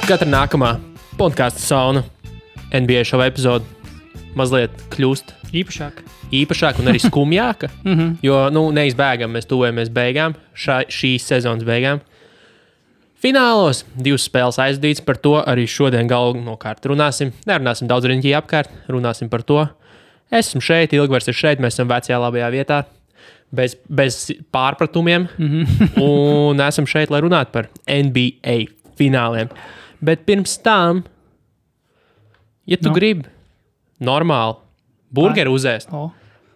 Katra nākamā podkāstu sauna NBA šova epizode mazliet kļūst īpašāka un arī skumjāka, jo neizbēgam mēs tuvojamies beigām, šīs sezonas beigām. Finālos 2 spēles aizdīts, par to arī šodien galvenokārt runāsim. Nerunāsim daudz riņķī apkārt, runāsim par to. Esmu šeit, Ilgvars ir šeit, mēs esam vecajā labajā vietā, bez pārpratumiem, un esam šeit, lai runātu par NBA fināliem. Bet pirms tam, ja tu gribi normāli burgeri uzēst,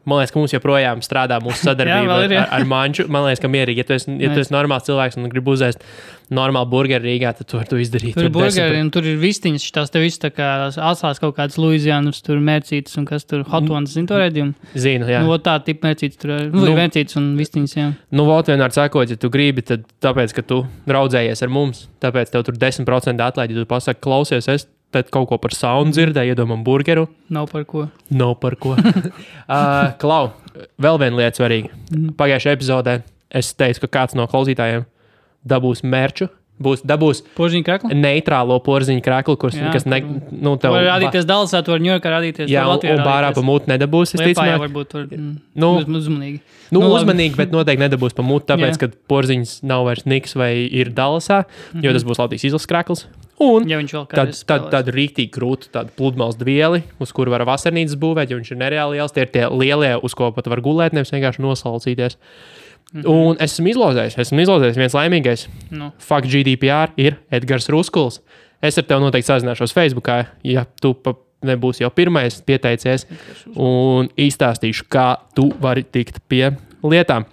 man liekas, ka mums joprojām strādā mūsu sadarbība ar Manču. Man liekas, ka mierīgi, ja tu esi normāls cilvēks un gribi uzēst normālu burgeri Rīgā, tad tu vari to izdarīt. Tur ir burgeri un tur ir vistiņas, šitās te viss tā kā atsās kaut kādas Luizianas, tur mērcītas un kas tur hot ones, zini to redzījumu? Zinu, jā. Tā tipa mērcītas tur ir mērcītas un vistiņas, jā. Vot vienmēr sakot, ja tu gribi, tad tāpēc, ka tu raudzējies ar mums, tāpēc tev tur 10% atlaidi, ja tu pasaki, klausies, es tad kaut ko par saunu dzirdēju, iedomam burgeru. Nav par ko. Klau, vēl viena lieta svarīga. Pagājušajā epizodē es teicu, ka kāds no klausītājiem dabūs merču. Dabūs porziņu kreklu? Neitrālo porziņu kreklu, kas tev... Var rādīties Dallasā, tu var Ņujorkā rādīties. Jā, un bārā pa mūtu nedabūs. Liepājā varbūt tur uzmanīgi. Uzmanīgi, bet noteikti nedabūs pa mūtu, tāpēc, ka porziņas nav vairs Niks vai ir Dallasā, jo tas būs Latvijas izlases krekls. Un ja tādu rīktīgi krūtu, tādu pludmales dvieli, uz kuru var vasarnīcas būvēt, jo viņš ir nereāli liels. Tie ir tie lielie, uz ko pat var gulēt, nevis vienkārši nosalcīties. Un esmu izlozējis viens laimīgais. Fuck GDPR ir Edgars Ruskuls. Es ar tevi noteikti sazināšos Facebookā, ja tu nebūsi jau pirmais pieteicies, un izstāstīšu, kā tu vari tikt pie lietām.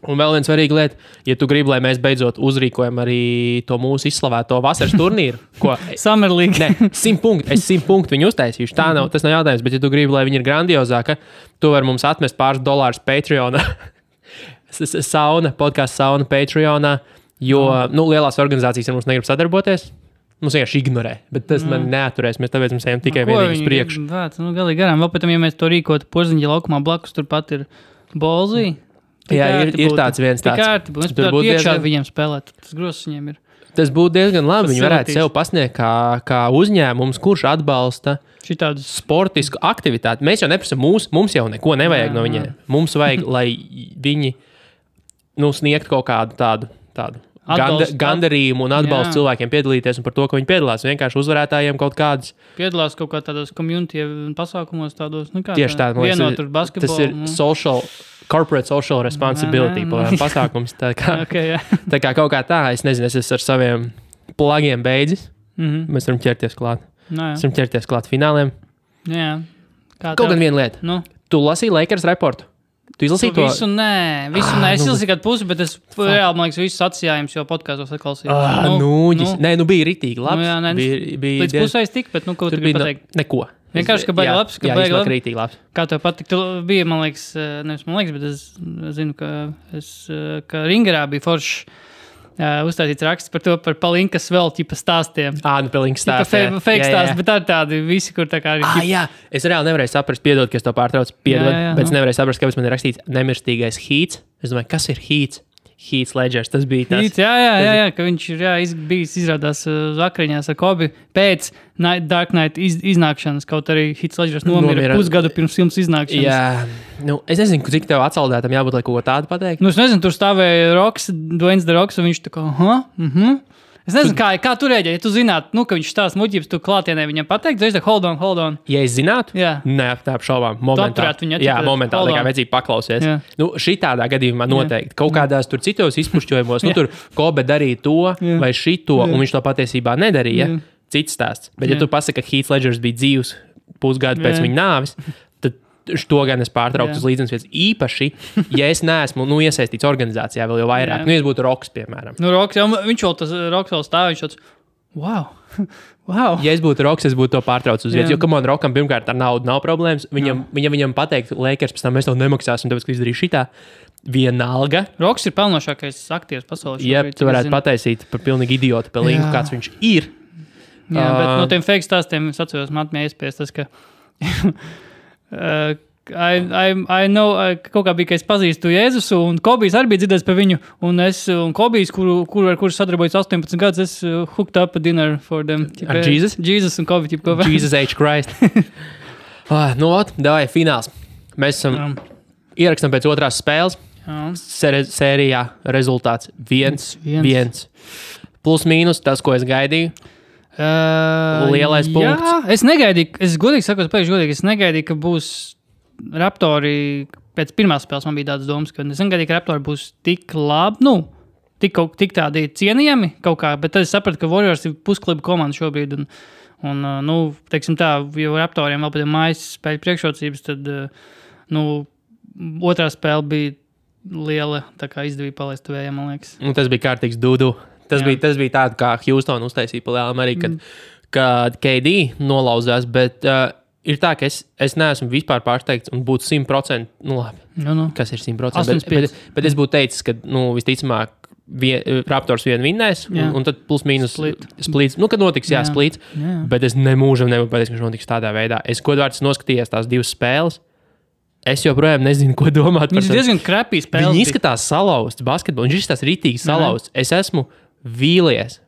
Un vēl viena svarīga lieta, ja tu gribi, lai mēs beidzot uzrīkojam arī to mūsu izslavēto vasaras turnīru, ko... Summer League. 100 punktu. Es 100 punktu viņu uztaisīšu. Tas nav jautājums, bet ja tu gribi, lai viņi ir grandiozāka, tu vari mums atmest pāris dolārus Patreonā. Podcasts sauna Patreonā, jo lielās organizācijas ar mums negrib sadarboties. Mums vienkārši ignorē, bet tas man neaturēs. Mēs tāpēc mums ejam tikai vienīgi uz priekšu. Galīgi garām. Vēl pēc tam, ja mēs to rīkotu Porziņa laukumā blakus, turpat ir Bolzī. Jā, ir tāds viens tāds. Mēs tur būtu iekšā viņiem spēlēt. Tas grozs viņiem ir. Tas būtu diezgan labi. Viņi varētu sev pasniegt kā uzņēmums, kurš atbalsta sportisku aktivitāti. Mēs jau neprasam mums jau neko nevajag no viņiem. Mums vajag, lai viņi sniegtu kaut kādu tādu gandarījumu un atbalstu cilvēkiem piedalīties un par to, ka viņi piedalās. Vienkārši uzvarētājiem kaut kādas. Piedalās kaut kā tādos community pasākumos tādos. Tieši tā. Vienotur basketbolu. Tas ir corporate social responsibility pasākums. Tā kā kaut kā tā, es nezinu, es esmu ar saviem plagiem beidzis. Mēs varam ķerties klāt. Mēs varam ķerties klāt fināliem. Jā. Kaut gan viena lieta. Tu lasīji Lakers reportu? Tu izlasīji to? Visu nē. Es izlasīju kādu pusi, bet es reāli, man liekas, visus atsijājums jau podkāstos atklausīju. Bija ritīgi labs. Līdz pusēs tik, bet kaut kur bija pateikt. Neko. Vienkārši, ka baigi labs. Rītīgi labs. Kā tev patīk, bija, man liekas, bet es zinu, ka Ringerā bija foršs uzstāstīts raksts par to, par Palinkas vēl ķipa stāstiem. Palinkas stāstiem. Fake stāsti, bet tādi visi, kur tā kā arī... Jā, es reāli nevarēju saprast, piedod, ka es to pārtraucu, bet es nevarēju saprast, kāpēc man ir rakstīts nemirstīgais Heats. Es domāju, kas ir Heats? Heath Ledgers, tas bija tas. Heath, jā, ka viņš ir bijis izrādās vakariņās ar Kobi pēc Dark Knight iznākšanas, kaut arī Heath Ledgers nomira pusgadu pirms filmas iznākšanas. Jā, es nezinu, cik tev atsaldētam jābūt, lai kaut ko tādu pateikt. Es nezinu, tur stāvēja Dwayne The Rocks, un viņš tā kā, Es nezinu, kā tu rēģēji, ja tu zinātu, ka viņš stāsta muļķības, tu klātienē viņam pateikt, es teiktu, hold on. Ja es zinātu? Jā. Nē, tā apšaubām. Momentāli, kā vajadzīgi paklausies. Šitādā gadījumā noteikti. Kaut kādās tur citos izpušķojumos, tur Kobe darīja to vai šito, un viņš to patiesībā nedarīja. Cits stāsts. Bet ja tu pasaki, ka Heath Ledgers bija dzīvs pusgadu pēc viņa nāves, to gan es pārtrauktu uz līdzenas vietas. Īpaši, ja es neesmu iesaistīts organizācijā vēl jau vairāk. Ja es būtu Roks, piemēram. Roks, viņš vēl tas Roks vēl stāv, viņš tāds, wow. Ja es būtu Roks, es būtu to pārtraucis uz vietas, jo man Rokam pirmkārt ar naudu nav problēmas. Viņam pateikt, Lakers pēc tam mēs to nemaksāsim, tāpēc, ka izdarīju šitā. Vienalga. Roks ir pelnošākais aktieris pasaulē. Ja tu varētu pataisīt par pilnīgi idiotu pelīgu, kāds viņš ir. Jā, bet no tiem fake stāstiem es atceros, man atmēja iespējas tas, ka I know, kaut kā bija, ka es pazīstu Jēzusu, un Kobijs arī bija dzirdējis par viņu, un Kobijs, ar kuru sadarbojas 18 gadus, es hooked up a dinner for them. Ar Jesus? Jesus un Kobi. Jesus H. Christ. Davai, fināls. Mēs esam ierakstam pēc otrās spēles. Sērijā rezultāts 1-1. Plus mīnus tas, ko es gaidīju. Lielais punkts. Jā, es negaidīju, es godīgi sakot, es negaidīju, ka būs Raptori, pēc pirmās spēles man bija tādas domas, ka es negaidīju, ka Raptori būs tik labi, tik tādi cienījami kaut kā, bet tad es sapratu, ka Warriors ir puskliba komanda šobrīd, un teiksim tā, jo Raptoriem vēl pēc mājas spēļu priekšrocības, tad, otrā spēle bija liela, tā kā izdevīja palaist vējā, man liekas. Un tas bija kārtīgs dudu. Tas bija tāda, kā Houston uztaisīja pa lielām arī, kad KD nolauzās, bet ir tā, ka es neesmu vispār pārsteigts un būtu 100%, labi, kas ir 100%, bet es būtu teicis, ka, visticamāk, Raptors vien vinnēs, un tad plus mīnus splīts. Kad notiks, splīts, bet es nemūžam nevaru pateikt, ka viņš notiks tādā veidā. Es godvārds noskatījos tās divas spēles. Es joprojām nezinu, ko domāt par to. Viņš ir diezgan krapī spēles. Viņi izskatās salauzts basketbolu, viņš izskatās ritīgi salauzts. Es esmu vīlies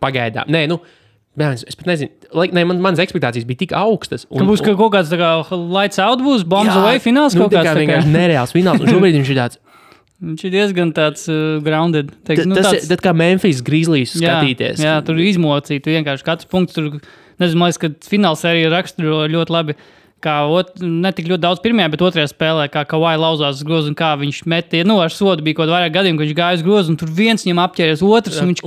pagaidām. Es pat nezinu. Manas ekspektācijas bija tik augstas. Būs kaut kāds tā kā lights out būs, bombs away fināls kaut kāds. Tā kā vienkārši nereāls fināls. Un šobrīd viņš ir tāds. Viņš ir diezgan tāds grounded. Tas kā Memphis Grizzlies skatīties. Jā, tur izmocīt. Vienkārši katrs punkts tur, nezinu, man liekas, ka fināls arī raksturo ļoti labi. Ne tik ļoti daudz pirmajā, bet otrajā spēlē, kā Kawhi lauzās uz grozu un kā viņš metīja. Ar sodu bija kaut vairāk gadiem, ka viņš gāja uz grozu un tur viens viņam apķēries otrs un viņš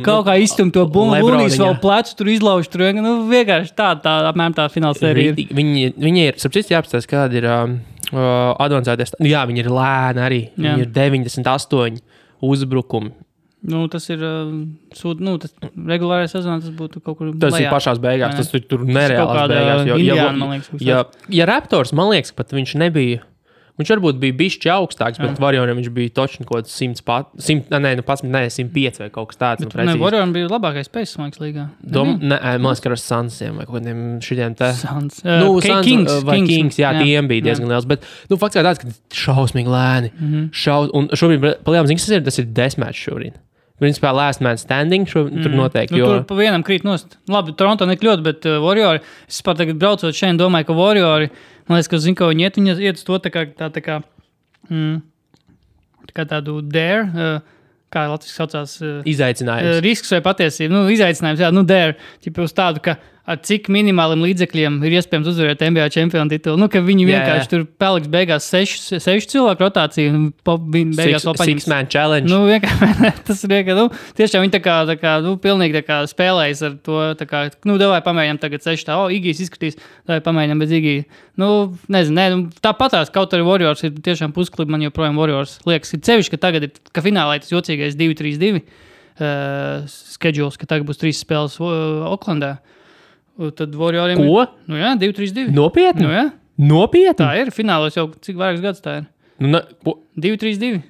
kaut kā izstum to bumbu. Lunīs vēl plecu, tur izlauž. Tur vienkārši tā apmēram tā fināla sērija ir. Viņi ir, sapcīt, jāapstāst, kāda ir advancēties. Jā, viņi ir lēni arī. Viņi ir 98 uzbrukumi. Tas ir tas regulārais sezons, tas būtu kaut kur tas lejā. Ir pašās beigās, tas ir tur nereālās beigās. Ja Raptors, man liekas, pat viņš nebija, viņš varbūt bija bišķi augstāks, bet Warrioriem viņš bija točni kaut kāds 105 vai kaut kas tāds. Warrioriem bija labākais spējas, man liekas, līgā. Man liekas, ka ar Sunsiem vai kaut kādiem šitiem te. Suns. Kings vai Kings, tiem bija diezgan liels, bet fakts kā tāds, ka šausmīgi lēni. Un šobrīd, palielam, tas ir desmatch šobrīd. Principā last man standing tur noteikti. Tur pa vienam krīt nost. Labi, Toronto nekļūt, bet Warriori, es pat tagad braucot šeit, domāju, ka Warriori, man liekas, ka zinu, ka viņi iet uz to tā kā tādu dare, kā Latvijas saucās. Izaicinājums. Risks vai patiesība. Izaicinājums, dare. Ķipa uz tādu, ka ar cik minimāliem līdzekļiem ir iespējams uzvarēt NBA čempionu titulu. Ka viņi vienkārši tur paliks beigās 6 cilvēku rotāciju un beigās vēl paņems. 6-man challenge. Tas ir vienkārši, tiešām viņi tā kā pilnīgi tā kā spēlējas ar to, tā kā, davai pamēģinām tagad 6 Igijs izskatīs, davai pamēģinām bez Igija. Nezinu, tāpatās, kaut arī Warriors ir tiešām pusklibi, man joprojām Warriors liekas, ir cevišķi, ka tagad ir, ka finālā ir tas jocīgais 2-3-2 schedules, ka tagad būs 3 spēles Oklandā. Tad Warrioriem ko? 2-3-2. Nopietni? Nopietni? Tā ir. Finālos jau cik vairākus gadus tā ir. 2-3-2.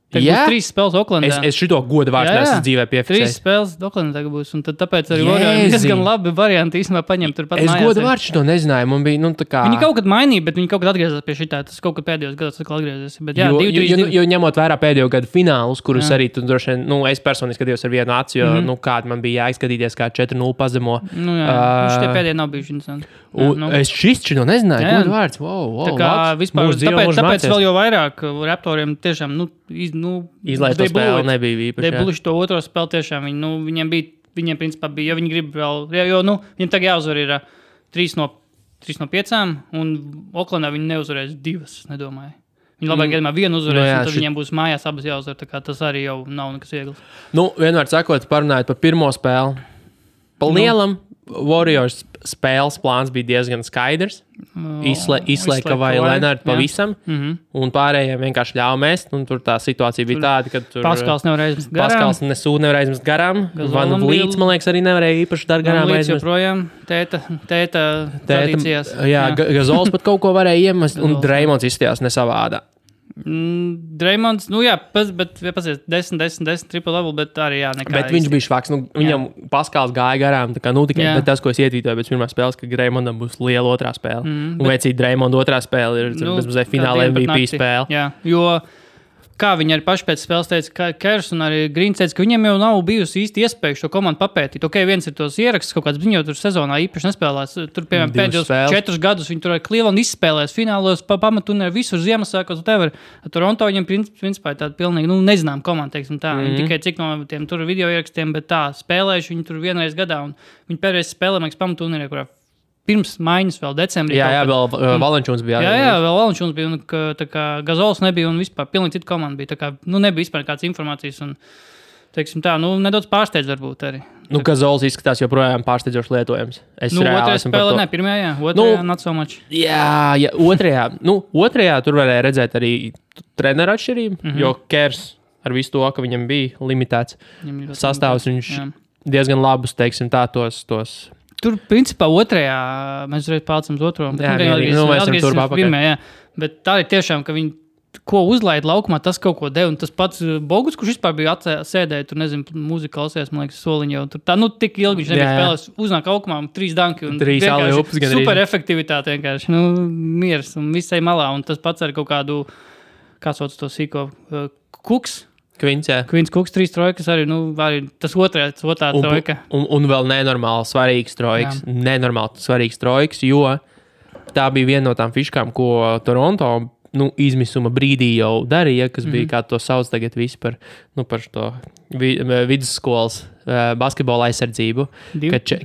Tagad būs 3 spēles Oklandā. Es šito godu vārds neesmu dzīvē piefiksējis. 3 spēles Oklandā tagad būs. Un tad tāpēc arī Warrioriem diezgan labi varianti īstenībā paņemt turpat mājās. Es godu vārds šito nezināju. Man bija, tā kā... Viņi kaut kad mainīja, bet viņi kaut kad atgriezās pie šitā. Tas kaut kad pēdējos gados atkal atgriezies. Bet jā, 2-3-2. Jo ņemot vērā pēdējo gadu finālus, kurus arī tu droši vien, es personīgi skatījos ar vienu aci, jo, kāda man bija jāizskatīties, kā 4-0 pazemo. Šitie pēdējie nav bijuši interesanti. Es šito nezināju. Godu vārds. Tā kā vispār, tāpēc vēl jau vairāk Raptoriem tiešām, izlaist to spēli nebija īpaši. Debluši to otro spēli tiešām. Viņiem principā bija, jo viņi grib vēl, viņiem tagad jāuzvar ir 3 no 5, un Oklandā viņi neuzvarēs 2, nedomāju. Viņi labāk gadījumā vienu uzvarēs, un tad viņiem būs mājās abas jāuzvar, tā kā tas arī jau nav nekas viegls. Vienmēr sakot, parunājot par pirmo spēli. Pa lielam Warriors spēles plāns bija diezgan skaidrs. Izslēga vai Lenārdu pavisam, un pārējiem vienkārši ļāva mest, un tur tā situācija bija tāda, ka tur Paskals nevarēja izmest garām. Paskals nevarēja izmest garām. Van Vliets, man liekas, arī nevarēja īpaši dar garām aizmest. Joprojām tēta tradīcijās. Jā, Gazols pat kaut ko varēja iemest, un Dreimons izstījās nesavādā. Dreymonds, bet 10 triple double, bet arī nekā. Bet viņš bija švaks, viņam Paskals gāja garām, tā kā, tikai tas, ko es ietītoju pēc pirmās spēles, ka Greymondam būs liela otrā spēle. Un veicīgi Dreymonda otrā spēle ir bezmazliet fināla MVP spēle. Jā, jo kā viņi arī paši pēc spēles teica, ka Kers un arī Grīns teica, ka viņiem jau nav bijusi īsti iespēja šo komandu papētīt. Viens ir tos ieraksts, kaut kāds viņu tur sezonā īpaši nespēlēs. Tur, piemēram, pēdējos 4 gadus viņi tur ar Cleveland izspēlēs finālos, pamaturnē visur Ziemassvētkos, Toronto viņiem principā ir tāda pilnīgi, nezinām komanda, teiksim tā. Viņi tikai cik no tiem tur video ierakstiem, bet tā spēlējuši viņi tur vienreiz gadā. Un viņi pēdējais spēlē, man liekas, pamaturnē, kurā pirms maiņas vēl decembrī. Jā, vēl Valančūns bija. Jā, vēl Valančūns bija, un tā kā Gazols nebija, un vispār pilnīgi cita komanda bija. Tā kā, nebija vispār kādas informācijas, un, teiksim tā, nedaudz pārsteidz varbūt arī. Gazols izskatās joprojām pārsteidzoši lietojams. Otrajā spēlē, pirmajā, otrajā not so much. Jā, otrajā tur varēja redzēt arī treneru atšķirību, jo Kers ar visu to, ka viņam bija limitēts sastāvs, viņš diezgan labus, teiksim tā, tos Tur, principā, otrajā mēs reiz pārcam uz otro. Bet tā ir tiešām, ka viņi ko uzlaid laukumā, tas kaut ko deva. Un tas pats Bogus, kurš vispār bija sēdēja, tur, nezinu, mūzika klausījās, man liekas, soliņa jau. Tur tā, tik ilgi viņš nebija spēlēs, uznāk laukumā 3 danki. Un 3 aleups gan arī. Super efektivitāte vienkārši, miers un visai malā. Un tas pats ar kaut kādu, kā sauc to sīko, Kuks. Kvins Kuks, 3 trojkas arī, arī tas otrā trojka. Un vēl nenormāli svarīgs trojkas, jo tā bija viena no tām fiškām, ko Toronto izmisuma brīdī jau darīja, kas bija, kā to sauc tagad visi par to vidusskolas basketbola aizsardzību,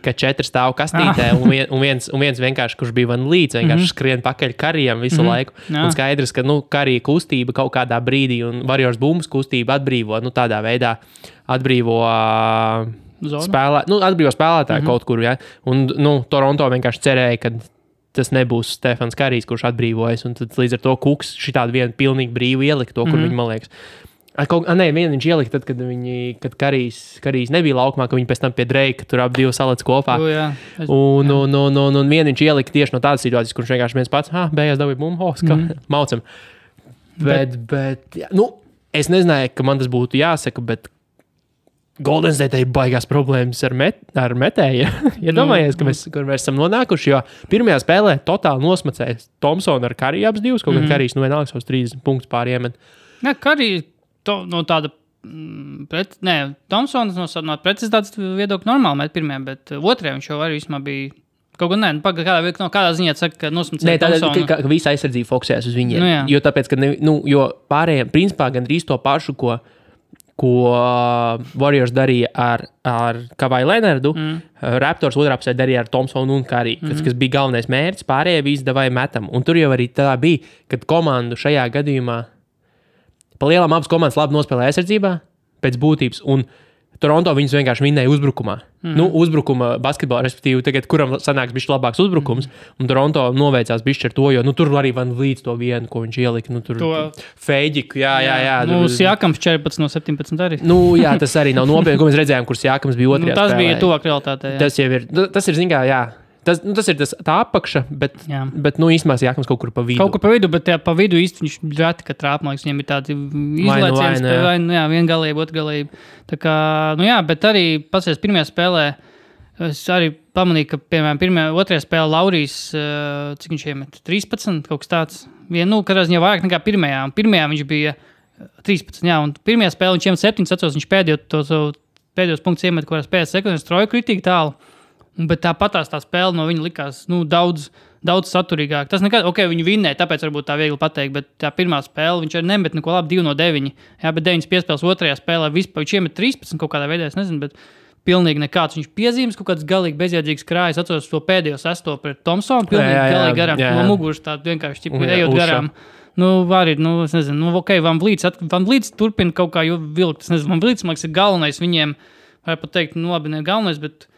ka 4 stāv kastītē un viens vienkārši, kurš bija van līdz, vienkārši skrien pakaļ Karijam visu laiku. Un skaidrs, ka Karija kustība kaut kādā brīdī un Warriors bumbas kustība atbrīvo, tādā veidā atbrīvo spēlētāju kaut kur, ja? Un, Toronto vienkārši cerēja, ka tas nebūs Stefans Karijs, kurš atbrīvojas, un tad līdz ar to Kuks šitādu vienu pilnīgi brīvu ielika to, kur viņi, man liekas. Vienu viņš ielika tad, kad Karijs nebija laukumā, ka viņi pēc tam pie Dreika tur ap 2 salec kopā. Un vienu viņš ielika tieši no tādas situācijas, kurš vienkārši viens pats, beigās dabīja bumbu, maucam. Bet es nezināju, ka man tas būtu jāsaka, bet Golden State ir baigās problēmas ar metēju. Domājies, kur mēs esam nonākuši, jo pirmajā spēlē totāli nosmacēja Thompsonu ar Kariju abas divas, kaut kā Karijs vienalga savus 30 punktus pāriemet. Jā, Karija no tāda Thompsons no precizitātes viedokļa normāli met pirmajā, bet otrajā viņš jau arī vismā bija kaut kā kādā ziņā saka, ka nosmacēja Thompsonu. Ka visa aizsardzība fokusējas uz viņiem. Jo tāpēc, ka jo pārējiem principā gandrīz to pašu, ko Warriors darīja ar Kawhi Leonardu, Raptors otrā pusē darīja ar Thompsonu un Kariju, kas bija galvenais mērķis, pārējie visi davai metam. Un tur jau arī tā bija, kad komandu šajā gadījumā pa lielām abas komandas labi nospēlēja aizsardzībā pēc būtības, un Toronto viņus vienkārši vinnēja uzbrukumā. Uzbrukuma basketbolā, respektīvi, tagad, kuram sanāks bišķi labāks uzbrukums, un Toronto noveicās bišķi ar to, jo tur arī van līdz to vienu, ko viņš ielika. Tur Feiģiku, jā. Siakams 14 no 17 arī. Jā, tas arī nav nopietni, ko mēs redzējām, kur Siakams bija otrajā spēlē. Tas bija tuvāk realitātei. Tas ir, zin kā, jā. Tas ir tā apakša, bet īstenībā Siakams kaut kur pa vidu. Kaut kur pa vidu, bet pa vidu īsti viņš reti, ka trāp, man liekas, viņiem ir tādi izlaiciens, viengalība, otrgalība. Tā kā, bet arī pasies pirmajā spēlē, es arī pamanīju, ka, piemēram, otrajā spēlē Laurijs, cik viņš iemet? 13, kaut kas tāds. Katrā ziņā vairāk nekā pirmajā. Un pirmajā viņš bija 13, un pirmajā spēlē viņš iemet 7, atceros, viņš pēdējos punktus iemet, kurās pēc sekundes troju kritīgi tālu. Bet tāpatās tā spēle no viņa likās daudz saturīgāk. Tas nekad, viņi vinnēja, tāpēc varbūt tā viegli pateikt, bet tā pirmā spēle viņš arī nemet neko labi 2 no 9. Jā, bet 9 piespēles otrajā spēlē vispār viņš iemet 13 kaut kādā veidā, es nezinu, bet pilnīgi nekāds. Viņš piezīmes kaut kāds galīgi bezjēdzīgs krājas, atceros to pēdējo sesto pret Thompsonu, pilnīgi galīgi garām, no muguras tā vienkārši ejot garām. Es nezinu, Van Vliets turpina kaut kā vilkt, es nezinu, Van Vliets, man liekas, ir galvenais viņiem, var pat teikt, labi, ne galvenais, bet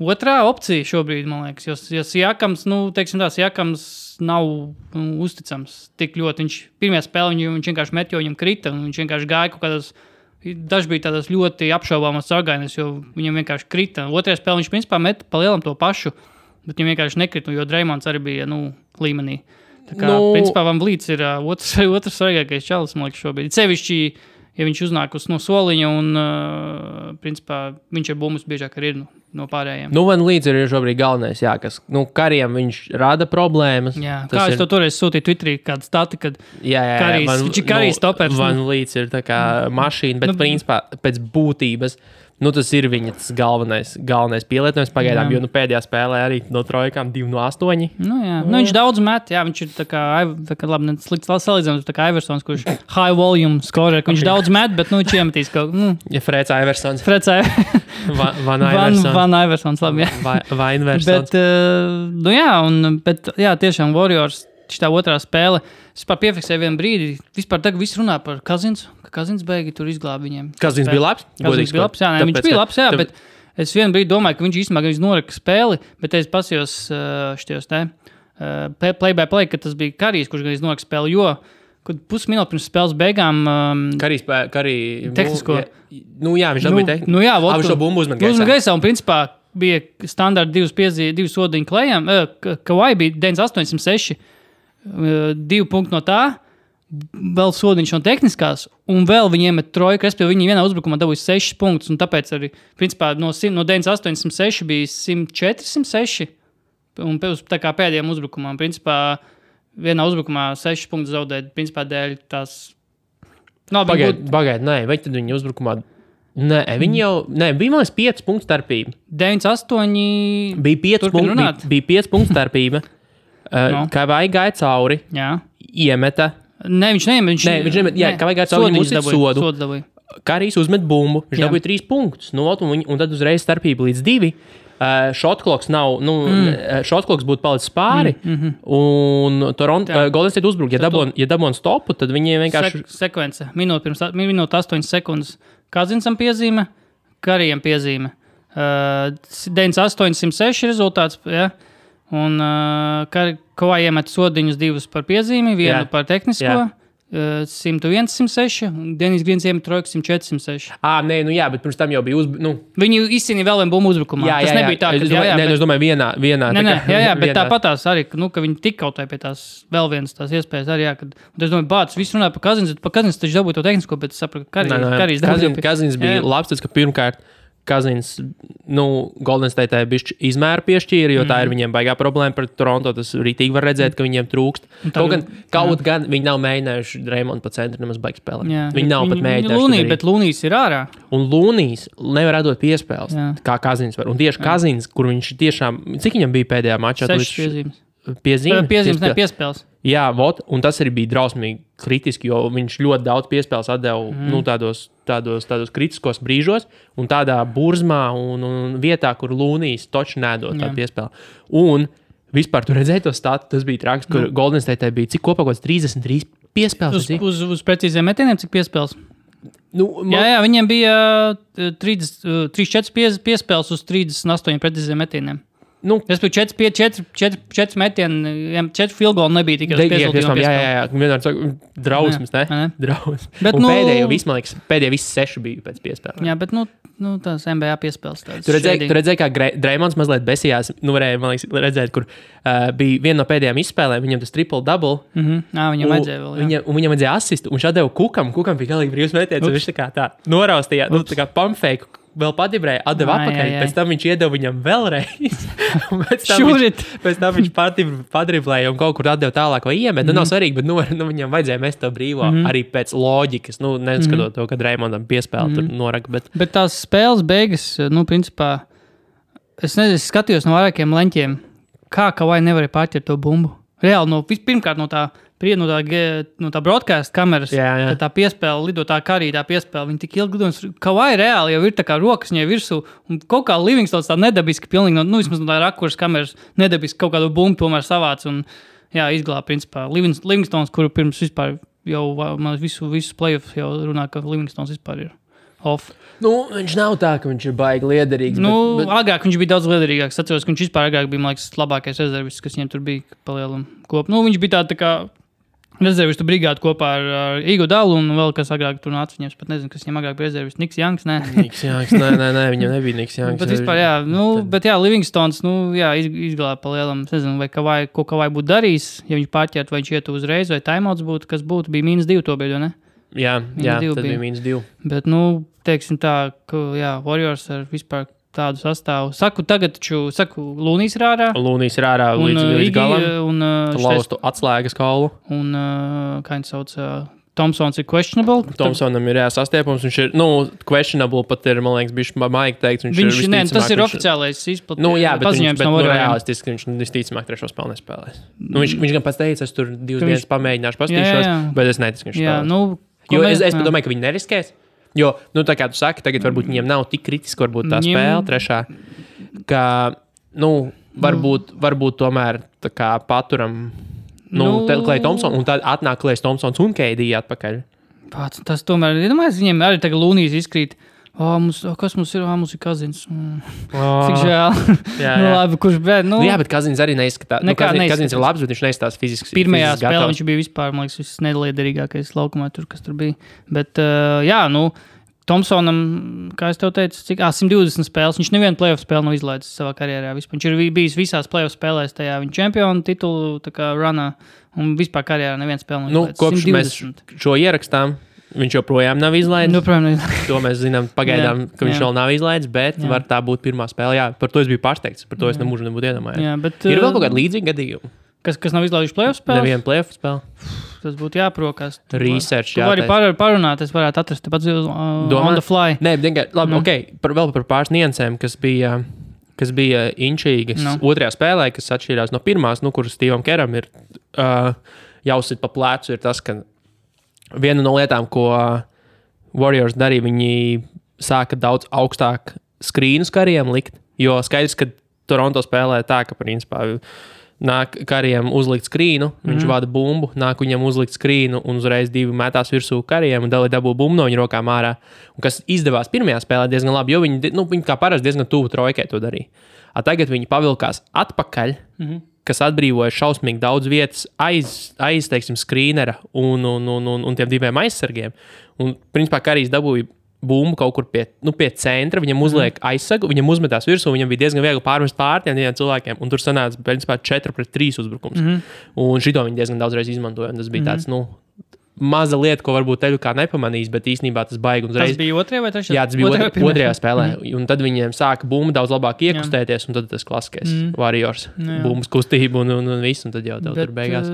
otrā opcija šobrīd, man liekas, jo Siakams, Siakams nav uzticams tik ļoti. Viņš pirmajā spēlē viņš vienkārši met, jo viņam krita, un viņš vienkārši gāja kaut kādas, daži bija tādas ļoti apšaubāmas sargainas, jo viņam vienkārši krita. Otrajā spēlē viņš principā met pa lielam to pašu, bet viņam vienkārši nekrita, jo Dreymonds arī bija, līmenī. Tā kā, principā, Van Vlīts ir otrs svarīgākais čalis, man liekas, šobrīd. Sevišķi, ja viņš uznāk no soliņa un, principā, viņš ar bumbas biežāk arī ir no pārējiem. Nu, Van Vlīts ir šobrīd galvenais, jā, kas, Kariem viņš rada problēmas. Jā, kā es to toreiz sūtīju Twitterī, kāda stati, kad viņš ir Karijas topers. Van Vlīts ir tā kā mašīna, bet principā pēc būtības, tas ir viņa galvenais pielietojums pagaidām, jo pēdējā spēlē arī no trojkām 2 no 8. Viņš daudz met, jā, viņš ir tā kā labi, slikts salīdzinājums, tā kā Iversons, kurš high volume scorer, viņš daudz met, bet, viņš iemetīs kaut Ja Freds Iversons. Van Iversons, labi, jā. Vai Iversons. Bet, tiešām Warriors, šitā otrā spēle, es vispār piefiksēju vienu brīdi, vispār tagad viss runā par Kazins, ka Kazins beigi tur izglāba viņiem. Kazins bija labs? Kazins bija labs, viņš bija labs, bet es vienu brīdi domāju, ka viņš īstenībā noraka spēli, bet es pasījos štajos play by play, ka tas bija Karijs, kurš gan noraka spēli, jo kad pusminūti pirms spēles beigām Karijs tehnisko. Viņš dabūja tehnisko. Viņš to bumbu uzmet gaisā. Un principā bija standarti 2 sodiņu klējām. Kawhi bija 9,806, 2 punkti no tā, vēl sodiņš no tehniskās, un vēl viņi iemet trojku, respektīvi viņi vienā uzbrukumā dabūja 6 punktus, un tāpēc arī, principā, no 9,806 bija 106, un tā kā pēdējiem uzbrukumam, principā, vienā uzbrukumā 6 punktus zaudēt, principā, dēļ tās... Pagaid, vai tad viņi uzbrukumā... Viņi jau... bija man 5 punktu starpība. 9,8... Bija 5 punktu starpība. Kā vai gāja cauri, iemeta. Viņš neiemet. Kā vai gāja cauri, viņam uzsit sodu. Karijs uzmet bumbu, viņš dabūja 3 punktus. Un tad uzreiz starpība līdz 2. Šotkloks nav, šotkloks būtu palicis pāri, un Golden State uzbruk. Ja dabon stopu, tad viņi vienkārši... Sekvence. Minūte 8 sekundes. Kazinsam piezīme, Karijam piezīme. 9,806 rezultāts, ja? Un Kawhi iemet sodiņus 2 par piezīmi, 1 par tehnisko. 101, 106, un Denis Grīns iemet trojku 104, 106. Bet pirms tam jau bija Viņi izcīnīja vēl vienu bumbu uzbrukumā. Tas nebija tā, ka... Es domāju, vienā. Bet tāpatās arī, ka viņi tik kautāja pie tās vēl vienas tās iespējas arī, kad... Es domāju, bācis, viss runāja par Kazins taču dabūja to tehnisko, bet es sapratu, ka Karijs dabūja. Kazins bija labs, tas, ka pirmkārt Kazins, Golden State bišķi izmēru piešķīra, jo tā ir viņiem baigā problēma par Toronto. Tas rītīgi var redzēt, ka viņiem trūkst. Kaut gan viņi nav mēģinājuši Draymond pa centru nemaz baigi spēlēt. Viņi nav pat mēģinājuši. Bet Lūnijs ir ārā. Un Lūnijs nevar atdot piespēles, kā Kazins var. Un tieši Kazins, kur viņš tiešām, cik viņam bija pēdējā mačā? 6 piezīmes, piespēles. Jā, un tas arī bija drausmīgi kritiski, jo viņš ļoti daudz piespēles atdeva tādos kritiskos brīžos un tādā burzmā un vietā, kur Lūnijs toči nedod tādu piespēli. Un vispār tu redzēji to statu, tas bija traks, kur Golden State bija cik kopā 33 piespēles. Uz precīziem metieniem cik piespēles? Viņiem bija 34 piespēles uz 38 precīziem metieniem. Es biju 4 metieni, 4 field goal nebija tikai uz piespēlēm. Jā, vienmēr saka, drausmas, ne? Drausmas. Bet, pēdējie visi 6 bija pēc piespēlēm. Jā, bet, tās NBA piespēles tādas. Tu redzēji, kā Draymonds mazliet besījās, varēja, man liekas, redzēt, kur bija viena no pēdējām izspēlēm, viņam tas triple-double. Viņam vajadzēja vēl, jā. Un viņam vajadzēja asistu, un viņš atdeva Kukam bija galīgi brīvs metiens, un viņš tā noraustījā, tā kā pumpfake. Vēl padibrēja, atdeva atpakaļ, pēc tam viņš iedeva viņam vēlreiz. Pēc tam viņš padriblēja un kaut kur atdeva tālāk vai iemet. Nav svarīgi, bet viņam vajadzēja mest to brīvo arī pēc loģikas. Neskatot to, ka Draymondam piespēle tur noraka. Bet tās spēles beigas, principā, es skatījos no vairākiem leņķiem, kā Kawhi nevarēja pārķert to bumbu. Reāli, pirmkārt no tā broadcast kameras, kad tā piespēle lido tā Karija, tā piespēle, viņi tik ilgi lido, Kawhi reāli jau ir tā kā rokas viņai virsū, un kaut kā Livingstons tā nedabiski, pilnīgi vismaz no tā rakuras kameras nedabiski kaut kādu bumbu tomēr savāc, un izglāb, principā, Livingstons, kuru pirms vispār jau visus playoffs jau runā, ka Livingstons vispār ir off. Viņš nav tā, ka viņš ir baigi liederīgs. Agrāk viņš bija daudz liederīgāks. Atceros, ka viņš vispār agrāk bija, man liekas, labākais rezervists, kas viņiem tur bija palielam kopu. Viņš bija tā kā Rezervistu brigādu kopā ar Igo Dalu un vēl kas agrāk tur nāca viņiem. Es pat nezinu, kas viņam agrāk bija rezervists. Niks Janks, nē. Niks Janks, nē, viņam nebija Niks Janks. Bet vispār, jā, bet jā, Livingstons, izglāba pa lielam. Es nezinu, vai ko Kavai būtu darījis, ja viņš pārķert, vai viņš ietu uzreiz, vai timeouts būtu, kas būtu, bija -2 to bija, ne? Jā, tad bija -2. Bet, teiksim tā, ka, jā, Warriors ar vispār tādu sastāvu. Saku, Lūnijs ir ārā. Lūnijs ir ārā līdz galam. Un laustu atslēgas kaulu. Un, kā viņš sauc, Thompsons ir questionable. Thompsonam ir jāsastiepums. Viņš ir, questionable pat ir, man liekas, bišķi maigi teikts. Tas ir oficiālais paziņojums no Warriors. Realistiski viņš visticamāk trešo spēli nespēlēs. Viņš gan pats teica, es tur 2 dienas pamēģināšu pastīšos, bet es neticu, ka viņš spēlēs. Jo es domāju, ka viņi neriskēs. Jo, tā kā tu saki, tagad varbūt viņiem nav tik kritiski, varbūt tā spēle trešā, ka, varbūt tomēr tā kā paturam, Klay Thompson, un tad atnāk Klays Thompsons un KD atpakaļ. Tas tomēr, viņiem arī tagad Lūnijs izkrīt. Kas mums ir? Mums ir Kazins. Cik žēl. Labi, kurš bet, jā, bet Kazins arī neizskatās. Kazins ir labs, bet viņš neizskatās fiziski. Pirmajā spēlē viņš bija vispār, man liekas, viss nedaliederīgākais laukumā tur, kas tur bija. Bet, Thompsonam, kā es tev teicu, 120 spēles. Viņš nevienu playoff spēli nav izlaidis savā karjerā. Vispār. Viņš ir bijis visās playoff spēlēs tajā viņa čempionu titulu runā. Un vispār karjerā nevienu spēli nav izlaidis. Kopš 120. Mēs šo ierakstām, viņš joprojām nav izlaidis. To mēs zinām pagaidām, ka viņš vēl nav izlaidis, bet var tā būt pirmā spēle. Jā, par to es biju pārsteigts. Par to es nemūžu nebūtu iedomājies. Ir vēl kaut kādi līdzīgi gadījumi. Kas nav izlaidis playoff spēles? Nevienu playoff spēli. Tas būtu jāprokās. Research, jā. Tu vari parunāt, es varētu atrast tepat on the fly. Nē, labi, vēl par pāris niansēm, kas bija inčīgas otrajā spēlē, kas atšķīrās no pirmās, kur Stevam Keram ir jāuzsit pa plecu, ir tas, ka viena no lietām, ko Warriors darīja, viņi sāka daudz augstāk skrīnus kariem likt, jo skaidrs, ka Toronto spēlē tā, ka principā nāk kariem uzlikt skrīnu, viņš vada bumbu, nāk viņam uzlikt skrīnu un uzreiz 2 metās virsū kariem un dabū bumbu no viņa rokām ārā. Un kas izdevās pirmajā spēlē diezgan labi, jo viņi kā parasti diezgan tuvu trojkai to darīja. Tagad viņi pavilkās atpakaļ, kas atbrīvoja šausmīgi daudz vietas aiz teiksim, skrīnera un tiem 2 aizsargiem. Un principā Karijs dabūja bumbu kaut kur pie centra, viņam uzliek aizsagu, viņam uzmetās virsū, viņam bija diezgan viegli pārmest pār tiem cilvēkiem, un tur sanāca, principā, 4-3 uzbrukums. Un šito viņi diezgan daudzreiz izmantoja, un tas bija tāds, maza lieta, ko varbūt teļu kā nepamanīs, bet īstenībā tas baigi uzreiz. Tas bija otrajā vai trešajā? Jā, tas bija otrajā spēlē, un tad viņiem sāka bumba daudz labāk iekustēties, un tad tas klasiskais Warriors, bumbas kustība un viss, un tad jau tur beigās.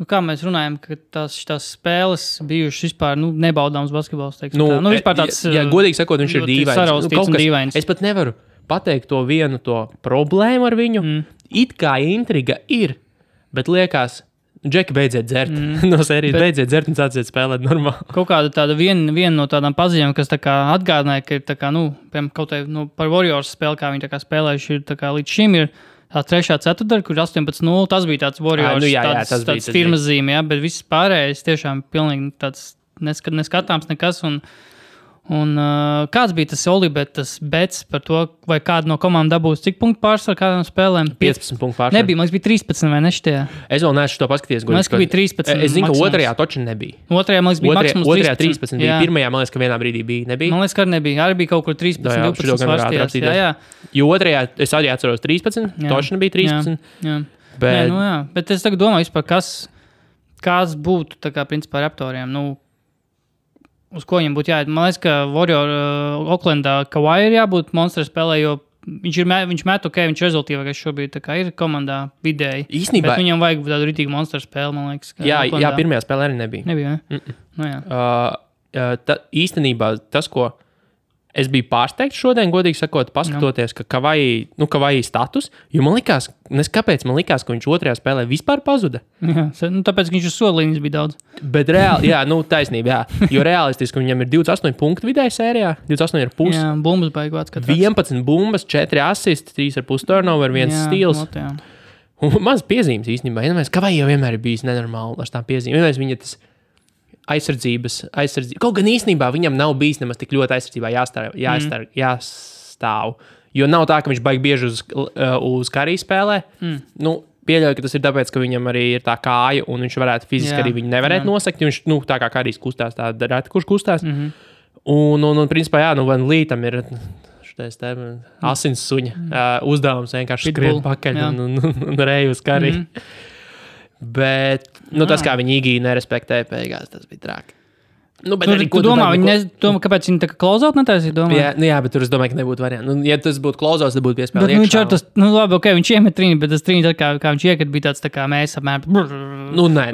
Kā mēs runājam, ka tās spēles bijušas vispār nebaudāms basketbols. Vispār tāds, godīgi sakot, viņš ir dīvains. Es pat nevaru pateikt to vienu problēmu ar viņu. It kā intriga ir, bet liekas, Džeki, beidziet dzert. No sērijas beidziet dzert un sāciet spēlēt normāli. Kaut kāda tāda viena no tādām paziņām, kas tā kā atgādināja, ka ir tā kā, piemēram, kaut kā par Warriors spēli, kā viņi tā kā spēlējuši ir tā kā līdz šim ir. Tā 3. ceturtdaļa, kur 18-0, tas bija tāds Warriors, tāds firmas zīme, bet viss pārējais tiešām pilnīgi tāds neskatāms nekas. Un kāds bija tas Olibetas bets par to, vai kāda no komandām dabūs cik punktu pārsvaru kādām spēlēm? 15 punktu pārsvaru. Nebija, man bija 13 vai ne šitie. Es vēl neesmu to paskatījies. Man liekas, ka bija 13. Es zinu, ka otrajā toči nebija. Otrajā, man liekas, bija maksimums 13. Otrajā 13 bija. Pirmajā, man liekas, ka vienā brīdī nebija. Man liekas, ka nebija. Arī bija kaut kur 13, 12 svarstījās. Jā. Jo otrajā, es arī atceros 13, toči nebija 13. Jā. Bet es tagad domāju vispār, kas būtu, tā kā, principā, Raptoriem, uz ko viņam būtu jāiet. Man liekas, ka Oklendā Kawhi ir jābūt monstru spēlē, jo viņš met ok, viņš rezultīvākais šobrīd ir komandā vidēji. Īstenībā. Bet viņam vajag tādu ritīgu monstru spēli, man liekas. Jā, pirmajā spēlē arī nebija. Nebija, ne? Īstenībā tas, ko es biju pārsteigts šodien, godīgi sakot, paskatoties, ka Kawhi status, jo man likās, kāpēc man likās, ka viņš otrajā spēlē vispār pazuda. Jā, tāpēc, ka viņš uz solīņas bija daudz. Bet reāli, taisnība, jo realistiski viņam ir 28 punktu vidēji sērijā, 28,5. Jā, bumbas baigvāts. 11 bumbas, 4 assists, 3,5 turnover, 1 stils. Un maz piezīmes īstenībā. Kawhi jau vienmēr ir bijis nenormāli ar tām piezīmēm. Viņa tas aizsardzības. Kaut gan īstenībā viņam nav bijis nemaz tik ļoti aizsardzībā jāstāv. Jo nav tā, ka viņš baigi bieži uz Kariju spēlē. pieļauju, ka tas ir tāpēc, ka viņam arī ir tā kāja, un viņš varētu fiziski arī viņu nevarētu nosakt. Viņš, tā kā arī kustās, tā reti, kurš kustās. Un principā, jā, Van Lītam ir šitais asins suņa uzdevums vienkārši skrien pakaļ un reju uz kari. Bet, tas, kā viņi Igiju nerespektēja beigās, tas bija traki. Bet arī, tu domā, kāpēc viņi tā kā close-out netaisīja? Jā, bet tur es domāju, ka nebūtu variantu. Ja tas būtu close-out, tad būtu piespēlēt iekšā. Viņš iemet trīni, bet tas trīni, kā viņš iekat, bija tāds tā kā mēs apmēram.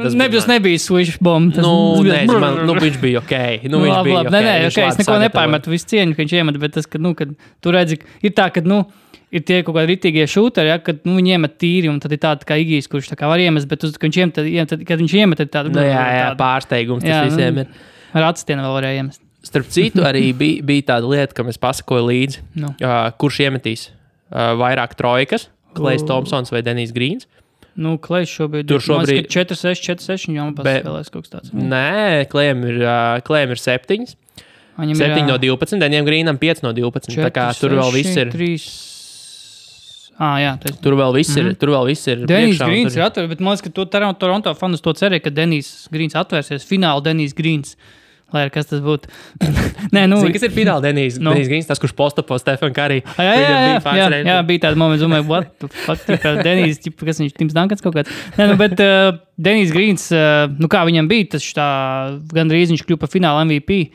Tas nebija switch bomb. Viņš bija ok. Es neko nepārmetu, visu cieņu, ka viņš iemet, bet tas, kad tu redzi, ir tā, ka, ir tie kaut kādi ritīgie šūteri, kad viņi iemet tīri, un tad ir tāda kā Igijs, kurš tā kā var iemest, bet kad viņš iemet, tad tāda. Jā, pārsteigums tas visiem ir. Ar atstienu vēl varēja iemest. Starp citu, arī bija tāda lieta, kam es pasakoju līdzi, kurš iemetīs vairāk trojkas, Klejs Thompsons vai Denijs Grīns. Klejs šobrīd ir 4-6, 4-6, viņam paspēlēs kaut kas tāds. Nē, Klejam ir 7. 7 no 12, Denijam Grīnam 5 no 12. 4, tā kā tur vēl viss ir. 3... Tur vēl viss ir. Denijs Grīns ir atvērts, bet man liekas, ka Toronto fanus to cerēja, ka Denijs Grīns atvērsies. Fināli Denijs Grīns. Lai ar kas tas būtu. Zini, kas ir fināli Denijs Grīns, tas, kurš postapo Stefan Curry. Jā, bija tāda momenta, domāju, what the fuck, Denijs, kas viņš, Tims Duncans kaut kāds. Bet Denijs Grīns, kā viņam bija, tas gandrīz viņš kļuva par fināla MVP.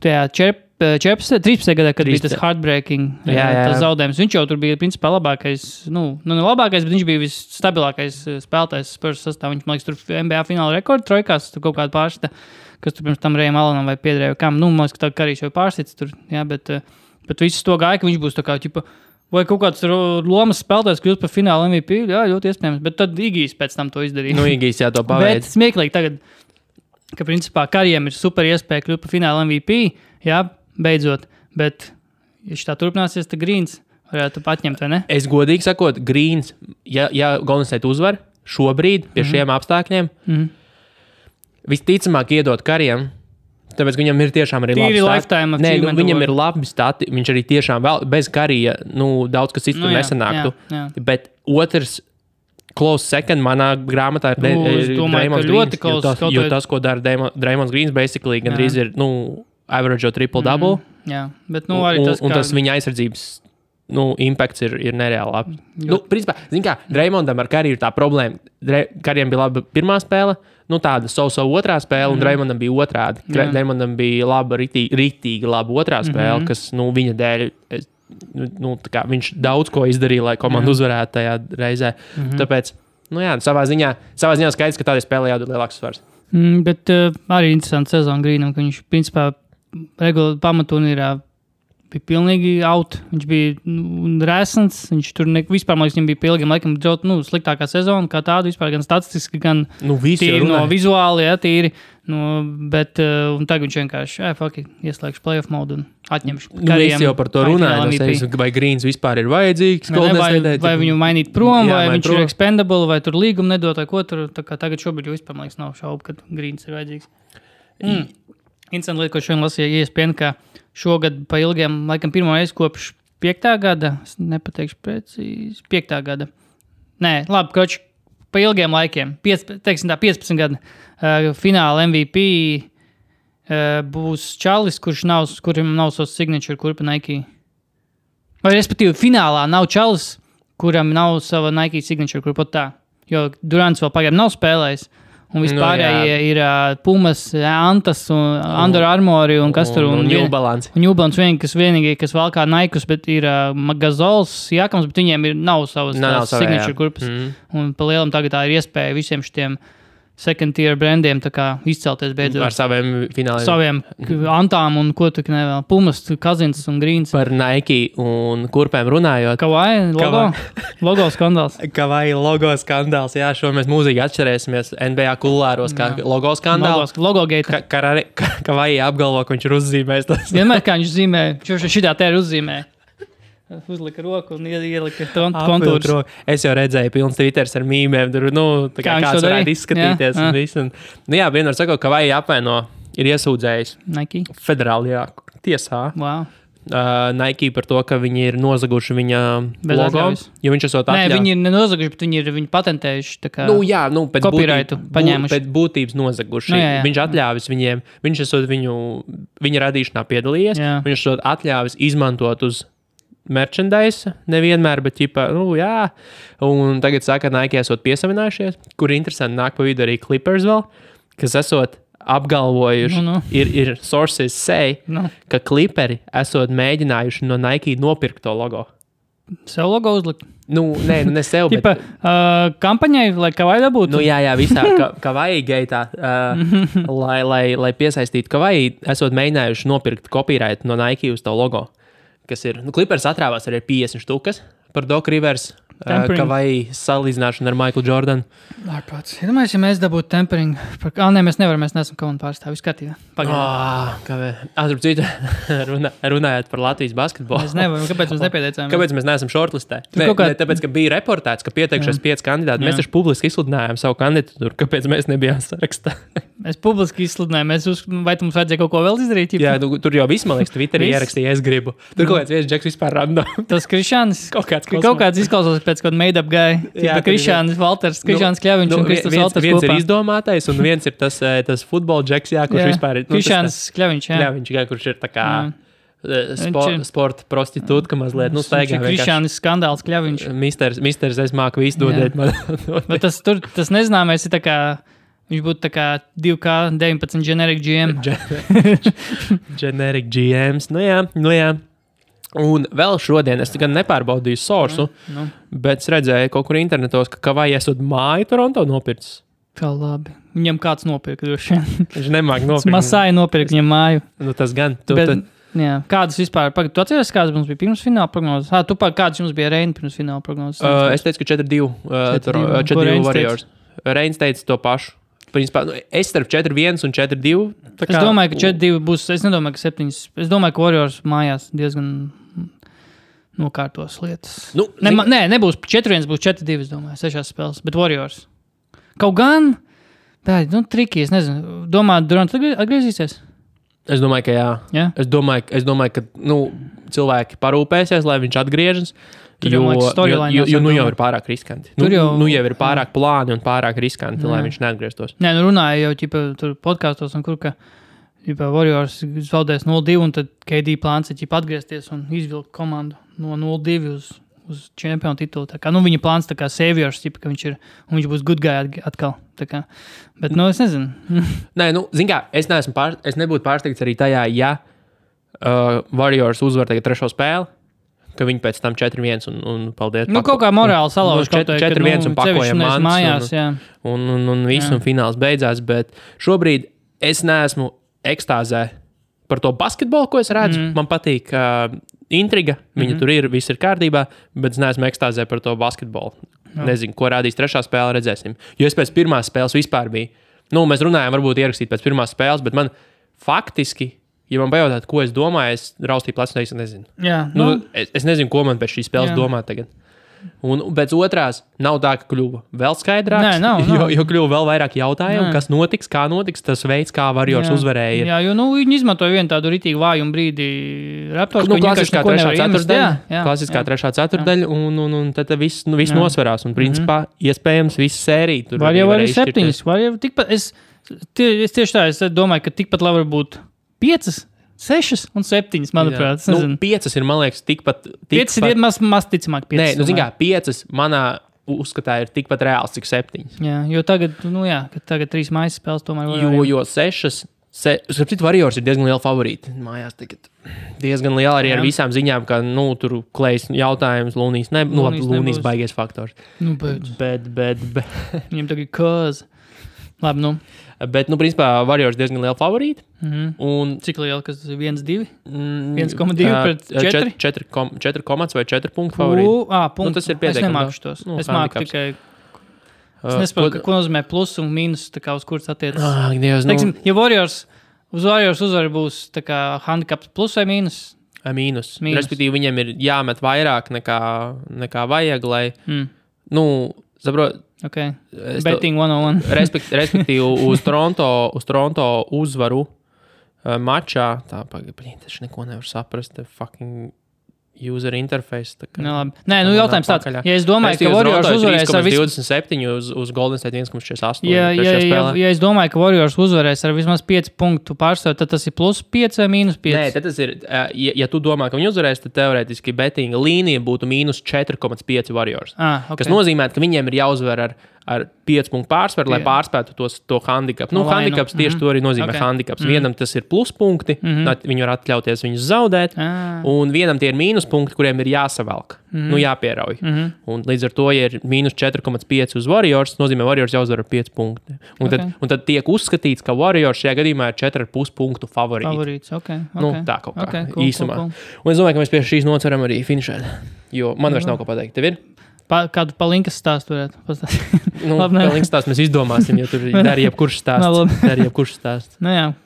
Tajā 13. gadā, kad bija tas heartbreaking tas zaudējums. Viņš jau tur bija principā labākais, ne labākais, bet viņš bija visstabilākais spēlētājs Spurs sastāvā. Viņš, man liekas, tur NBA fināla rekordu trojkās, tur kaut kāda pārsita, kas tur pirms tam Rejam Alanam vai Piedrēju kam. Man liekas, ka tā Karīs jau pārsits tur, bet visu to gāja, ka viņš būs tā kā, vai kaut kāds lomas spēlētājs kļūst par fināla MVP, jā, ļoti iespējams, bet tad Igijs pēc tam to izdarīja. Igijs jā, to paveic. Bet smieklīgi tagad, ka principā Karijam ir super iespēja kļūt par fināla MVP, jā, beidzot, bet, ja tā turpināsies, tad Grīns varētu atņemt, vai ne? Es godīgi sakot, Grīns, ja Golden State uzvar šobrīd pie šiem apstākļiem, visticamāk iedot Karijam, tāpēc viņam ir tiešām arī labi stati. Viņam ir labi stati, viņš arī tiešām vēl bez Karija, daudz kas cits tur nesanāktu. Jā. Bet otrs close second manā grāmatā ir Draymonds Grīns, jo tas, ko dara Draymonds Grīns, basically gandrīz ir, average triple-double. Jā, bet arī tas, un tas viņa aizsardzības impakts ir nereāli labi. Principā, zini kā, Draymondam ar Kariju ir tā problēma. Karijam bija laba pirmā spēle, tāda so otrā spēle, un Draymondam bija otrādi. Draymondam bija laba, ritīgi laba otrā spēle, kas, viņa dēļ, viņš daudz ko izdarīja, lai komanda uzvarētu tajā reizē. Tāpēc, savā ziņā skaidrs, ka tādai spēlē jādod lielāks svars. Bet arī interesanti sezona Grīnam, ka viņš, principā, regulāri pamaturnīrā bija pilnīgi out. Viņš bija resns, viņš tur vispār, man liekas, viņam bija pilnīgi laikam sliktākā sezona, kā tāda vispār, gan statistiski, gan tīri no vizuāli, tīri. Bet un tagad viņš vienkārši, ieslēgšu playoff modu un atņemšu Karijam. Es jau par to runāju, vai Grīns vispār ir vajadzīgs. Vai viņu mainīt prom, vai viņš ir expendable, vai tur līgumu nedot, vai ko tur. Tā kā tagad šobrīd jau vispār, man liekas, nav šaubu, ka Grīns ir vajadzīgs. Interesanti lieta, ko šodien lasīja ESPN, ka šogad pa ilgiem, laikam pirmo reizi kopš 5. gada, es nepateikšu precīzi, 5. gada. Nē, labi, koči, pa ilgiem laikiem, 15 gadi, fināla MVP būs Čalis, kurim nav savs signature, kurpa Nike. Vai respektīvi, finālā nav Čalis, kuram nav sava Nike signature, kurpa tā. Jo Durants vēl pagaidām nav spēlējis. Un vispārējie ir Pumas, Antas un Under Armour un kas tur. Un New Balance. Un New Balance vienīgi, kas valkā Naikus, bet ir Gazols, Jākams, bet viņiem nav savas signature kurpas. Un pa lielam tagad tā ir iespēja visiem šitiem second tier brandiem tā kā izcelties beidzot. Ar saviem fināliem. Saviem Antām un ko tu nevēl. Pumas, Kazins un Grīns. Par Nike un kurpēm runājot. Kavai logo? Logo skandāls. Kavai logo skandāls, jā, šo mēs mūzīgi atšķirēsimies NBA kulāros kā logo skandāls. Logo gate. Kavai apgalvo, ka viņš ir uzzīmējis tas. Vienmēr kā viņš zīmē, šitā te ir uzzīmē. Uzlika roku un ielika kontūrus. Es jau redzēju pilns Twitters ar mīmēm, tur, tā kā kāds varētu izskatīties un visu. Vienmēr sakot, ka vai apvaino ir iesūdzējis Nike federālajā tiesā. Wow. Nike par to, ka viņi ir nozaguši viņa Bez logo. atļaujas. Jo viņš esot Nē, atļauts. viņi ir nenozaguši, bet viņi ir patentējuši. Tā kā Pēc copyrightu paņēmuši. Pēc būtības nozaguši. Jā. Viņš atļāvis viņiem, viņš esot viņa radīšanā piedalījies, Jā. viņš esot atļāvis izmantot uz merchandise, nevienmēr, bet ķipa, jā. Un tagad saka, Nike esot piesavinājušies, kur interesanti nāk pa vidu arī Clippers vēl, kas esot apgalvojuši, ir sources say, ka Clipperi esot mēģinājuši no Nike nopirkt to logo. Sev logo uzlikt? Ne sev, bet... kampaņai, lai Kavai dabūtu? Jā, visā Kavai gaitā, lai piesaistītu Kavai, esot mēģinājuši nopirkt copyright no Nike uz to logo. Kas ir, Clippers atrāvās arī 50 štukas par Doc Rivers, Kavai salīdzināšanu ar Michael Jordan. Ārpats. Iedomājies, ja mēs dabūtu tempering. Nē, mēs nevaram, mēs neesam komandu pārstāvi. Viss kārtībā. Starp citu, runājot par Latvijas basketbolu. Mēs nevaram, kāpēc mēs nepieteicām? Kāpēc mēs neesam shortlistē? Tāpēc, ka bija reportēts, ka pieteikšies 5 kandidāti. Mēs taču publiski izsludinājām savu kandidatūru. Kāpēc mēs nebijām sarakstā? Mēs publiski izsludinājām. Vai mums vajadzēja kaut ko vēl izdarīt? Jā, tur jau viss, man liekas, Twitterī ierakstīja, es gribu. Tur kaut kāds viens džeks vispār random. Tas Krišāns. Kaut kāds izklausās pēc kāda made-up guy. Krišāns Valters, Krišāns Kļaviņš un Kristus Valters kopā. Viens ir izdomātais un viens ir tas futbola džeks, kurš vispār ir. Krišāns Kļaviņš, jā. Kļaviņš, kurš ir tā kā sporta prostitūtka mazliet. Staigā vienkārši. Krišāns skandāls Kļaviņš. Misters, es māku visu dodēt man. Bet tas nezināmais ir tā kā, viņš būtu tā kā 2K19 generic GM. Generic GMs, nu jā. Un vēl šodien es gan nepārbaudīju source, bet es redzēju kaut kur internetos, ka Kavai esot māju Toronto nopircis. Kā labi. Viņam kāds nopirka droši vien. Viņš nemāk nopirkt. Masāji nopirka viņam māju. Tas gan. Jā, kādas vispār, tu atceries, kādas mums bija pirms fināla prognozes? Kādas jums bija Reina pirms fināla prognozes? Es teicu, ka 4-2 Warriors. Reins teica to pašu. Principā, es starp 4-1 un 4-2. Es domāju, ka 4-2 būs, es nedomāju, ka 7. Es domāju, ka Warriors mājās diezgan nokārtos lietas. Nebūs 4-1, būs 4-2, es domāju, 6 spēles, bet Warriors. Kaut gan, triki, es nezinu, domāju, Durant atgriezīsies? Es domāju, ka jā. Ja? Es domāju, ka cilvēki parūpēsies, lai viņš atgriežas. Jo jau ir pārāk riskanti. Jau ir pārāk plāni un pārāk riskanti, lai viņš neatgrieztos. Nē, runāja jau tur podkastos, un kur ka Warriors zaudēs 0-2, un tad KD plāns ir atgriezties un izvilkt komandu no 0-2 uz čempionu titulu. Tā kā, viņa plāns tā kā saviors, ka viņš būs good guy atkal. Tā kā. Bet, es nezinu. Nē, zin kā, es nebūtu pārsteigts arī tajā, ja Warriors uzvar tagad 3. spēli, ka viņi pēc tam 4-1 un paldies. Kaut kā morāli salauž. 4-1 un pakojam mājās, un viss un fināls beidzās, bet šobrīd es neesmu ekstāzē par to basketbolu, ko es redzu. Man patīk intriga, viņa tur ir, viss ir kārtībā, bet es neesmu ekstāzē par to basketbolu. Nezinu, ko rādīs 3. spēle, redzēsim. Jo es pēc 1. spēles vispār biju. Mēs runājām, varbūt ierakstīt pēc 1. spēles, bet man faktiski, ja man pajautāt, ko es domāju, es raustīju plecu, es nezinu. Jā, es nezinu, ko man pēc šīs spēles domāt tagad. Un pēc otrās nav tā, ka kļuva vēl skaidrāks, jo kļuva vēl vairāk jautājumu, kas notiks, kā notiks, tas veids, kā Warriors uzvarēja. Jā, jo viņi izmantoja vienu tādu ritīgi vājumu brīdi Raptors, klasiskā 3. ceturtdaļa, klasiskā 3. ceturtdaļa, un tad viss nosverās, un principā iespējams visa sērija. Var jau arī 7, var jau tikpat, es tieši tā, es domāju, ka tikpat labi var būt 5, 6 un 7, manuprāt. 5 ir, man liekas, tikpat... 5 ir maz ticamāk 5. Nē, zin kā, 5 manā uzskatā ir tikpat reāls, cik 7. Jā, jo tagad, ka tagad 3 mājas spēles tomēr var... Jo 6... Sapratu, Warriors ir diezgan liela favorīti. Mājās tagad diezgan liela arī ar visām ziņām, ka, tur Klejs jautājums, Lūnijas Lūnijas baigies faktors. Bet... Viņam tagad kāz. Labi, Bet, principā, Warriors diezgan liela favorīta. Un cik liela, kas tas ir 1-2? 1,2 pret 4? 4 komats vai 4 punktu favorīti. Punktu. Tas ir pietiekami. Es nemāku šitos. Es māku tikai... Es nesaprotu, ko nozīmē plus un mīnus, tā kā uz kuras attiecas. Teiksim, ja Warriors uzvar būs tā kā handicaps plus vai mīnus? Mīnus. Respektīvi, viņiem ir jāmet vairāk nekā vajag, lai... Saprot... Okay. Betting 101. Respektīvi, uz Toronto uzvaru mačā. Tā pagaidām, tas neko nevar saprast. Fucking user interface. Nē, jautājums tāds. Ja es domāju, ka Warriors uzvarēs ar 27 uz Golden State 1,48. Ja es domāju, ka Warriors uzvarēs ar vismaz 5 punktu pārsvaru, tad tas ir plus 5 vai mīnus 5? Nē, tad tas ir, ja tu domā, ka viņi uzvarēs, tad teorētiski bettinga līnija būtu mīnus 4,5 Warriors. Okay. Kas nozīmē, ka viņiem ir jāuzvar ar 5 punktu pārsvaru, lai pārspētu to handikapu. Handikaps tieši to arī nozīmē handikaps. Vienam tas ir pluspunkti, viņi var atļauties viņus zaudēt, un vienam tie ir mīnuspunkti, kuriem ir jāsavelk, jāpierauj. Un līdz ar to, ja ir mīnus 4,5 uz Warriors, nozīmē Warriors jāuzvar ar 5 punkti. Un tad tiek uzskatīts, ka Warriors šajā gadījumā ir 4,5 punktu favorīts. Tā kaut kā īsumā. Un es domāju, ka mēs pie šīs nots varam arī finišēt, jo man vairs nav ko pateikt. Tev ir? Kādu palinkas stāstu varētu pastāstīt? Palinkas stāstu mēs izdomāsim, jo tur dar jebkurš stāsts.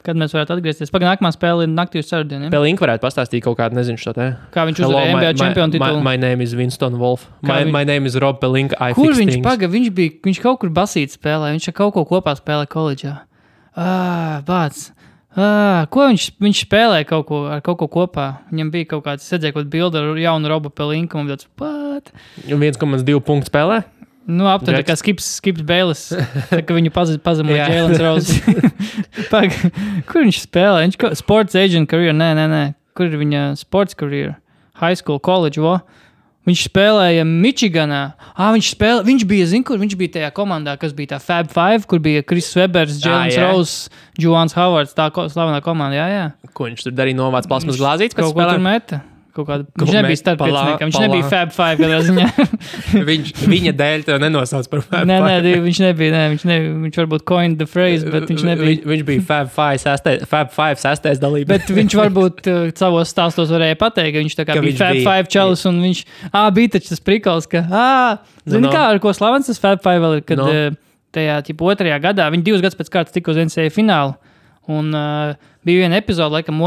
Kad mēs varētu atgriezties. Pagaid, nākamā spēle ir naktī uz ceturtdienu. Pelink varētu pastāstīt kaut kādu, nezinu šo te. Kā viņš uzvarēja NBA čempionu titulu. My name is Winston Wolf. My name is Rob Pelink. Kur viņš kaut kur basīt spēlē? Viņš kaut ko kopā spēlē koledžā. Ko viņš spēlēja kaut ko kopā? Viņam bija kaut kāds, redzēja kaut bildi ar jaunu Robu Pelinku, un tāds, 1,2 punktu spēlē? Aptuveni kā Skips Bailes, ka viņu pazemoja Jēlens Rose. Kur viņš spēlē? Sports agent career? Nē. Kur ir viņa sports career? High school, college, Viņš spēlēja Michiganā. Viņš bija tajā komandā, kas bija tā Fab Five, kur bija Chris Webers, Jēlens Rose, Juans Howards, tā slavenā komanda, jā. Ko viņš tur darīja, novāc plasmas glāzītes? Kaut ko tur meta. Viņš nebija starppieciniekam, viņš nebija Fab Five kādā ziņā. Viņa dēļ tev nenosauc par Fab Five. Nē, viņš nebija, viņš varbūt coined the phrase, bet viņš nebija. Viņš bija Fab Five sastais dalība. Bet viņš varbūt savos stāstos varēja pateikt, ka viņš tā kā bija Fab Five čalis, un viņš, bija taču tas prikals, ka, zini kā, ar ko slavens tas Fab Five vēl ir, kad tajā, 2. gadā, viņi 2 gadus pēc kārtas tika uz NCAA finālu, un bija viena epizode, laikam,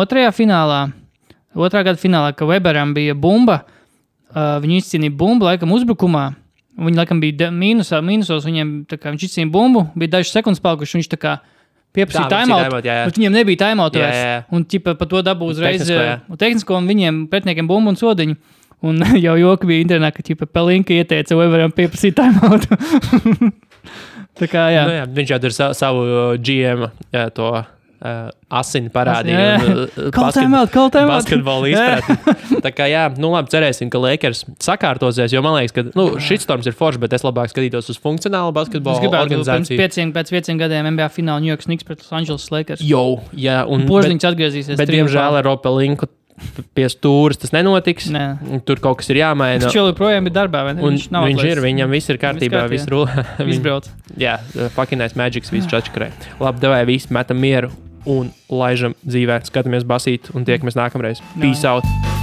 2. gada finālā, ka Weberam bija bumba, viņi izcīnīja bumbu, laikam, uzbrukumā. Viņi, laikam, bija mīnusos, viņiem, tā kā viņš izcīnīja bumbu, bija dažas sekundes palikuši, viņš tā kā pieprasīja timeout, bet viņiem nebija timeout vairs. Un, pa to dabū uzreiz tehnisko, un viņiem pretniekiem bumbu un sodiņu. Un jau joki bija internetā, ka, Pelinka ieteica Weberam pieprasīt timeout. Tā kā, jā. Viņš jau tur savu GM to... asini parādīja basketbolu izpratni. Tā kā labi, cerēsim, ka Lakers sakārtosies, jo man liekas, ka šitstorms ir forši, bet es labāk skatītos uz funkcionālu basketbolu organizāciju. Pēc 5 gadiem NBA fināla New York Knicks pret Los Angeles Lakers. Požliņš atgriezīsies. Bet diemžēl ar Robu Pelinku pie stūras tas nenotiks. Tur kaut kas ir jāmaina. Viņš joprojām ir darbā, vai ne? Viņam viss ir kārtībā, viss rulē. Viss brauc. Jā, fucking Magics, viss čačakrē. Labi, davai, visi metam mieru un laižam dzīvē. Skatāmies basīt un tiekamies nākamreiz. Peace out!